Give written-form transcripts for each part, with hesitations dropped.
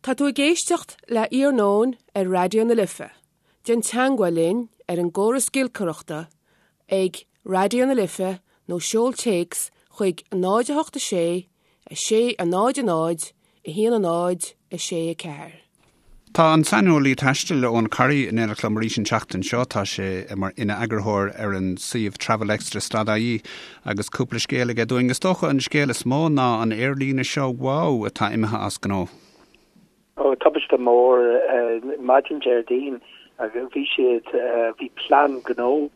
Tá tú ag éisteacht le Iarnóin ar Raidió na Life. Déan teagmháil linn ar an gcóras giolcaireachta ag Raidió na Life nó seol téacs chuig 0 8 6 6 0 0 1 0 6 4. Tá an saineolaí taistil Eoin Corry in éineacht liom arís an tseachtain seo. Tá sé mar ina eagarthóir ar an suíomh Travelextra stad ie agus cúpla scéal aige dúinn. Is dócha an scéal is mó ná an aerlíne seo WOW atá imithe as gnó. Ó, tubaiste mór maidin Déardaoin. Bhí siad, bhí plean gnó,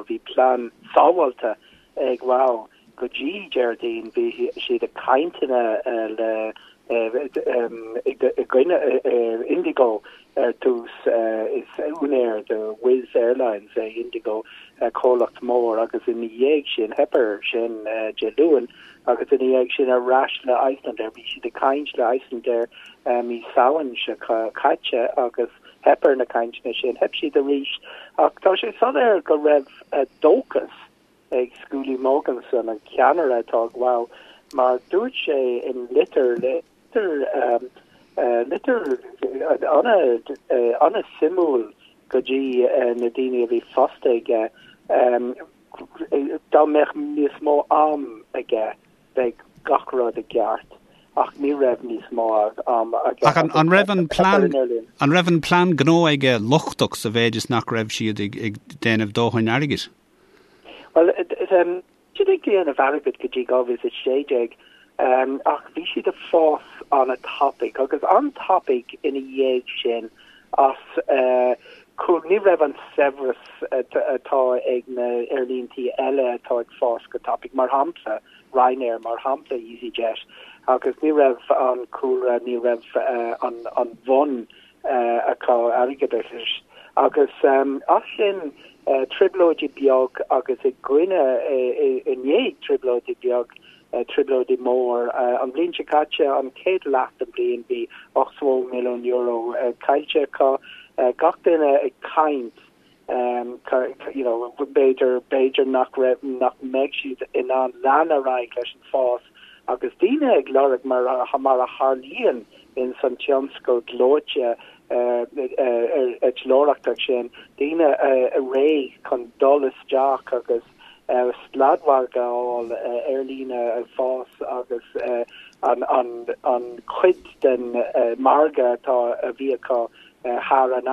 bhí plean sábháilte ag WOW go dtí Déardaoin. Bhí siad ag cainteanna le, i gcoinne Indigo ar dtús. Is úinéir de Wizz Airlines é Indigo, comhlacht mór, agus ina dhiaidh sin, theip air sin Dé Luain. Agus ina dhiaidh sin ar ais le Icelandair. Bhí siad ag caint le Icelandair mí Samhain seo caite agus theip ar na cainteanna sin. Theip siad arís. Ach tá sé soiléir go raibh dóchas ag Skúli Mogensen, an ceannaire atá ag WOW, mar dúirt sé in litir, litir, litir an-suimiúil go dtí na daoine a bhí fostaithe aige, Dá mbeadh níos mó am aige bheadh gach rud i gceart ach ní raibh níos mó am aige. Ach an raibh an plean an raibh an plean gnó aige lochtach sa mhéid is nach raibh siad ag déanamh dóthain airgid? Bhuel, bhí siad ag déanamh airgid go dtí 2016 ach bhí siad ag fás an-tapaidh agus an-tapaidh ina dhiaidh sin as ní raibh an saibhreas atá ag na aerlíntí eile atá ag fás go tapaidh, mar shampla Ryanair, mar shampla EasyJet, agus ní raibh an cúlra, ní raibh an bhun acu airgeadais. Agus as sin trioblóidí beag agus i gcoinne, i ndiaidh trioblóidí beag, trioblóidí mór. An bhliain seo caite, an chéad leath den bhliain, bhí €80 milliún caillte acu. Gach duine ag caint, you know, b'fhéidir, b'fhéidir nach raibh, nach mbeidh siad in ann lean ar aghaidh leis an fás agus daoine ag lorg mar, mar a tharlaíonn ins an tionscal gleoite eitleoireachta sin, daoine réidh chun dul isteach agus sladmhargadh a fháil, aerlíne ag fás agus an chuid den margadh atá a bhí acu thar an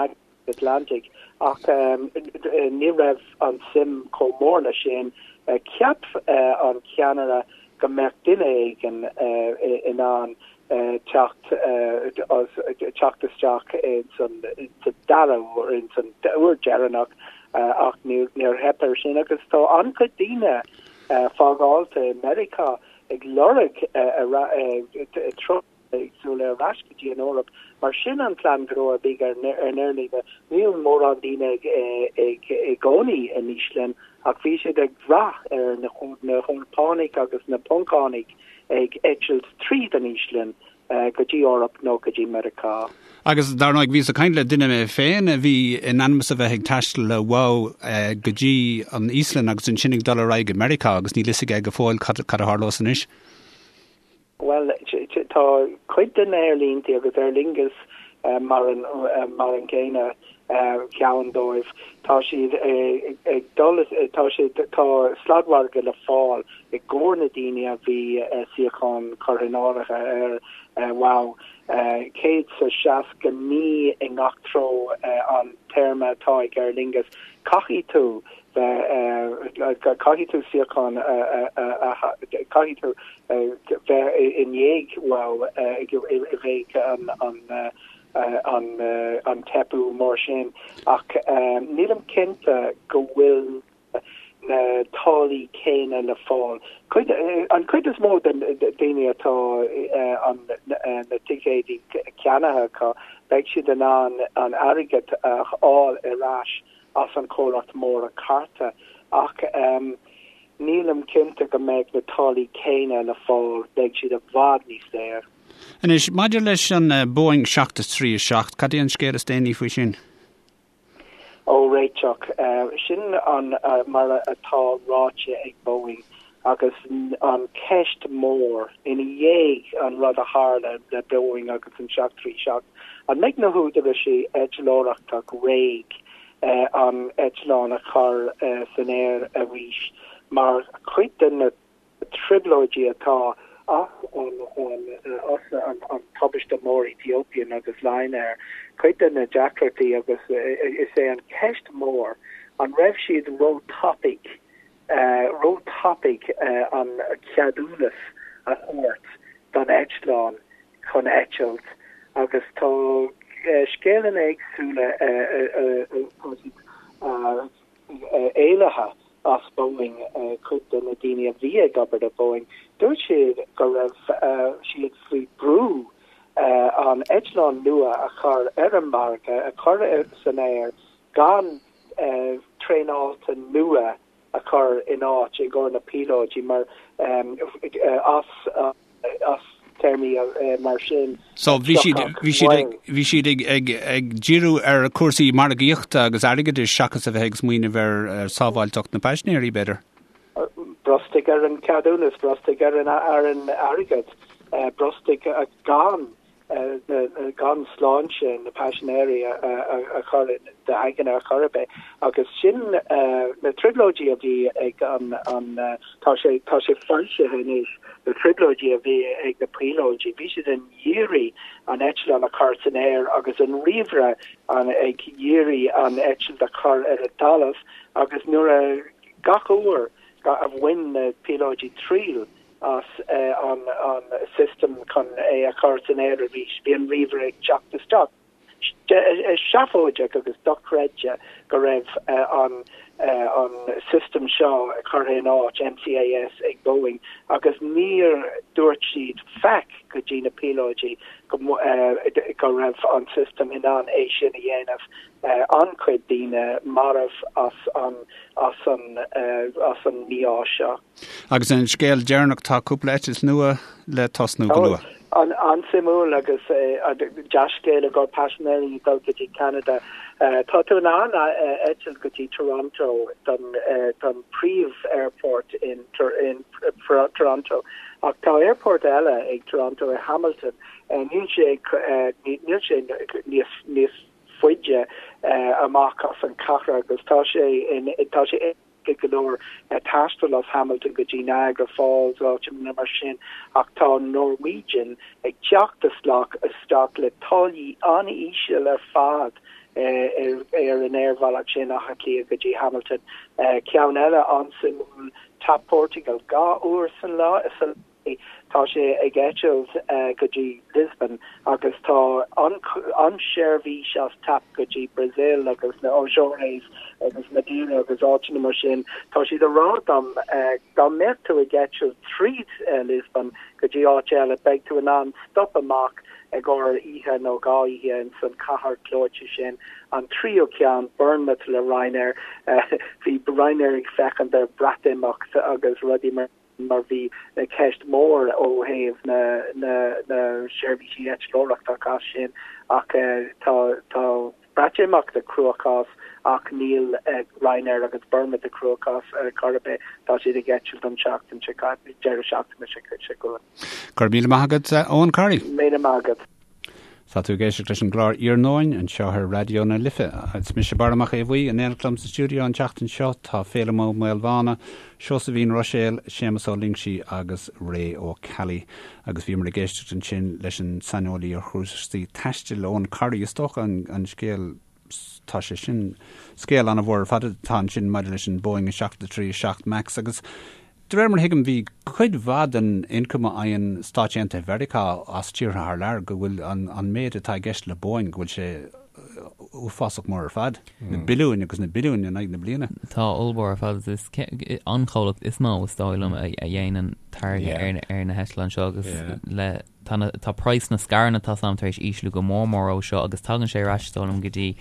Atlantaigh. Ach ní raibh an suim chomh mór leis sin. Cheap an ceannaire go mbeadh duine éigin in ann teacht teacht isteach ins an dara huair, ins an uair deireanach ach níor theip air sin agus tá an-chuid daoine fágáilte i Meiriceá ag lorg ag súil ar ais go dtí an Eoraip mar sin an plean gnó a bhí ar an aerlíne. Níl mórán daoine ag i gcónaí in Íoslainn ach bhí siad ag brath ar na hEorpánaigh agus na Poncánaigh ag eitilt tríd an Íoslainn go dtí Eoraip nó go dtí Meiriceá. Agus dar ndóigh, bhíos ag caint le duine mé féin a bhí in ainm is a bheith ag taisteal le WOW go dtí an Íoslainn agus ansin ag dul ar aghaidh go Meiriceá agus níl fhios aige go fóill cad a tharlós anois. Bhuel, tá cuid de na haerlíntí agus Aer Lingus mar an mar an gcéanna ceann dóibh, tá siad ag dul, tá siad, tá sladmhargadh le fáil i gcomhair na daoine a bhí suíochán curtha in áirithe ar WOW. 169 i ngach treo an téarma atá ag Aer Lingus. Caithfidh tú bheith, caithfidh tú suíochán a, caithfidh tú bheith i ndiaidh WOW i bhfeidh an an teipeadh mór sin ach nílim cinnte go bhfuil na táillí céanna le fáil. Cuid, an chuid is mó den daoine atá an na ticéidí ceannaithe acu, beidh siad in ann an airgead a fháil ar ais as an chomhlacht mór cárta ach nílim cinnte go mbeidh na táillí céanna le fáil, beidh siad i bhfad níos daor. Anois, maidir leis an Boeing 737, cad é an scéal is déanaí faoi sin? Ó, réiteach. Sin an mar atá ráite ag Boeing. Agus an ceist mór ina dhiaidh an rud a tharla le Boeing agus an 737, an mbeidh na húdaráis eitleoireachta réidh an eitleán a chur san aer arís mar chuid de na trioblóidí atá as an tubaiste mór Ethiopian agus Lion Air, cuid de na deacrachtaí agus is é an ceist mór an raibh siad ró-tapaidh ró-tapaidh an ceadúnas a thabhairt don eitleán chun eitilt agus tá scéalanna éagsúla tá siad éalaithe as Boeing, cuid de na daoine a bhí ag obair do Boeing, dúirt siad go raibh siad faoi brú an eitleán nua a chur ar an margadh, a chur san aer gan traenáilte nua a chur in áit i gcomhair na píolóidí mar as as téarmaí mar sin. So bhí siad bhí siad ag bhí siad ag ag ag díriú ar cúrsaí margaíochta agus airgeadais seachas a bheith ag smaoineamh ar sábháilteacht na paisinéirí b'fhéidir. Brostaigh ar an ceadúnas, brostaigh ar an ar an airgead, brostaigh gan gan sláinte na paisinéirí a chur d'aigne ar chor ar bith. Agus sin na trioblóidí a bhí ag an, tá sé, tá sé foilsithe anois, na trioblóidí a bhí ag na píolóidí, bhí siad ag iarraidh an eitleán a chur san aer agus an ríomhaire ag iarraidh an eitilt a chur ar an talamh agus nuair a, gach uair a bhain na píolóidí triail as an system chun é a chur san aer arís. Bhí an ríomhaire ag teacht isteach. Seafóideach agus dochreidte go raibh an an system seo curtha in áit, MCAS, ag Boeing agus níor dúirt siad faic go dtí na píolóidí go go raibh an system in ann é sin a dhéanamh. An-chuid daoine marbh as an as an as an mí-ádh seo. Agus an scéal deireanach, tá cúpla eitilt nua le tosnú go luath. An-suimiúil agus dea-scéal i gcomhair paisinéirí ag dul go dtí Ceanada. Tá tú in ann eitilt go dtí Toronto don príomh-airport in Toronto ach tá airport eile ag Toronto i Hamilton. Níl sé níl sé níos níos faide amach as an chathair agus tá sé in tá sé go leor taisteal as Hamilton go dtí Niagara Falls, áiteanna mar sin, ach tá Norwegian ag teacht isteach isteach le táillí an-íseal ar fad ar an aerbhealach sin, Átha Cliath go dtí Hamilton. Ceann eile an-suimiúil, TAP Portugal, 2 uair san lá, sa Tá sé ag eitilt go dtí Lisbon agus tá an seirbhís as TAP go dtí Brazil agus na Azores agus Madeira agus áiteanna mar sin. Tá siad ag rá dom dá mbeadh tú ag eitilt tríd Lisbon go dtí áit eile beidh tú in ann stop amach i gcomhair oíche nó 2 oíche ins an cathair gleoite sin. An tríú ceann, Bournemouth le Ryanair. Bhí Ryanair ag féachaint ar Breatimeacht agus rudaí mar. mar bhí ceist mhór ó thaobh na na seirbhísí eitleoireachta as sin ach tá tá Breatimeacht i gcruachás ach níl Ryanair agus Bournemouth i gcruachás ar chor ar bith, tá siad ag eitilt an tseachtain seo deireadh seachtaine seo chugainn. Go raibh míle maith agat, Eoin Corry. Míle maith agat. Tá tú ag éisteacht leis an gclár Iarnóin anseo ar Raidió na Life. Is mise Barra Mac Aodha Bhuí, in éineacht liom sa stiúideo an tseachtain seo tá Féilim Ó Maolmhána, Seosaimhín Ruiséal, Séamus Ó Loingsigh agus Ray Ó Ceallaigh. Agus bhíomar ag éisteacht ansin leis an saineolaí ar chúrsaí taistil, Eoin Corry. Is dócha an scéal tá sé sin scéal an-mhór ar fad atá ansin maidir leis an Boeing 737 Max agus de réir mar a thuigim bhí cuid mhaith den ioncam a fhaigheann Stáit Aontaithe Mheiriceá as tíortha thar lear go bhfuil an an méid atá i gceist le Boeing go bhfuil sé uafásach mór ar fad, na billiúin agus na billiúin in aghaidh na bliana. Tá ollmhór ar fad is an chomhlacht is mó is dóigh liom a dhéanann táirge ar na heitleáin seo agus le Tá na, tá praghas na scaireanna tá 's a'm tar éis ísliú go mór mór ó seo agus tagann sé ar ais is dóigh liom go dtí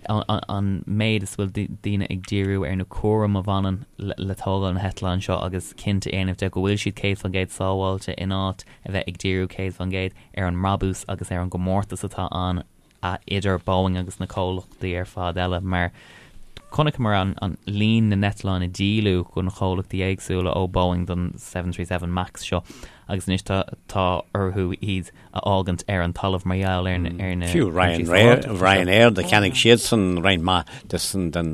an méid is bhfuil daoine ag díriú ar na cúram a bhaineann le tógáil na heitleáin seo agus cinnte a dhéanamh de go bhfuil siad 100% sábháilte in áit a bheith ag díriú 100% ar an mbrabús agus ar an gcomórtas atá ann idir Boeing agus na comhlachtaí ar fad eile mar. Chonaiceamar an líon na n-eitleán a díoladh do na comhlachtaí éagsúla ó Boeing don 737 Max seo agus anois tá tá orthu iad a fhágaint ar an talamh mar gheall ar na Fiú Ryanair Ryanair do cheannaigh siadsan roinnt mhaith de san den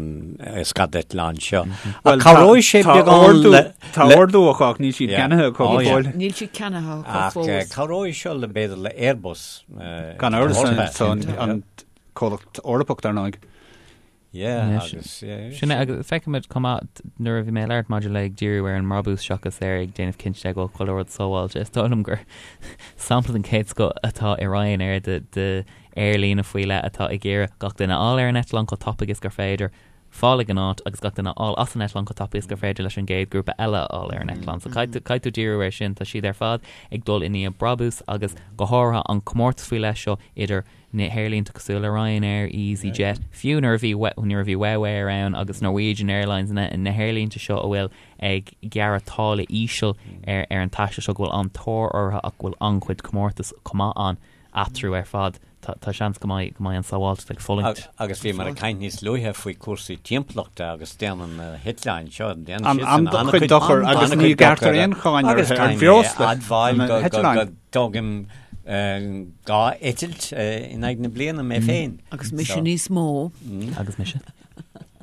scadeitleán seo. Ach cabhróidh sé beagán le Tá ordú acu ach níl siad ceannaithe acu go fóill. Níl siad ceannaithe acu fós. Ach cabhróidh seo le b'fhéidir le Airbus. Gan amhras an comhlacht Eorpach dar ndóigh. Yeah, agus, yeah. Sin é, agus feicimid chomh maith nuair a bhí mé ag labhairt maidir le ag díriú ar an mbrabús seachas ar ag déanamh cinnte de go bhfuil chuile rud sábháilte. Is dóigh liom gur sampla den chéad scoth atá i Ryanair de, de aerlíne faoi leith atá ag iarraidh gach duine a fháil ar an eitleán chomh tapaidh is gur féidir, fáil ag an áit agus gach duine a fháil as an eitleán chomh tapaidh is gur féidir leis an gcéad grúpa eile a fháil ar an eitleán. So caithfidh tú, caithfidh tú díriú air sin. Tá siad ar fad ag dul i ndiaidh brabús agus go háirithe an comórtas faoi leith seo idir na haerlínte cosúil le Ryanair, EasyJet, fiú nuair a bhí nuair a bhí WOW Air ann agus Norwegian Airlines, na na haerlínte seo a bhfuil ag gearradh táille íseal ar ar an taisteal seo go bhfuil an-tóir orthu ach go bhfuil an-chuid comórtas chomh maith ann eatarthu ar fad. Tá tá seans go mbeidh go mbeidh an sábháilteacht ag fulaingt. Agus bhíomar ag caint níos luaithe faoi chúrsaí timpeallachta agus déanann na heitleáin seo, déanann siadsan an-chuid dochair agus ní ghearrtar aon cháin orthu ar bhreosla na heitleáin. Tógaim 2 eitilt in aghaidh na bliana mé féin. Agus mise níos mó. Agus mise.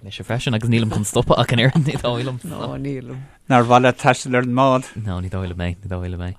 Mise freisin agus nílim chun stopadh ach an oiread ní dóigh liom. Ná nílim. Nár mhaith leat taisteal ar an mbád? Ná ní dóigh liom é, ní dóigh liom é.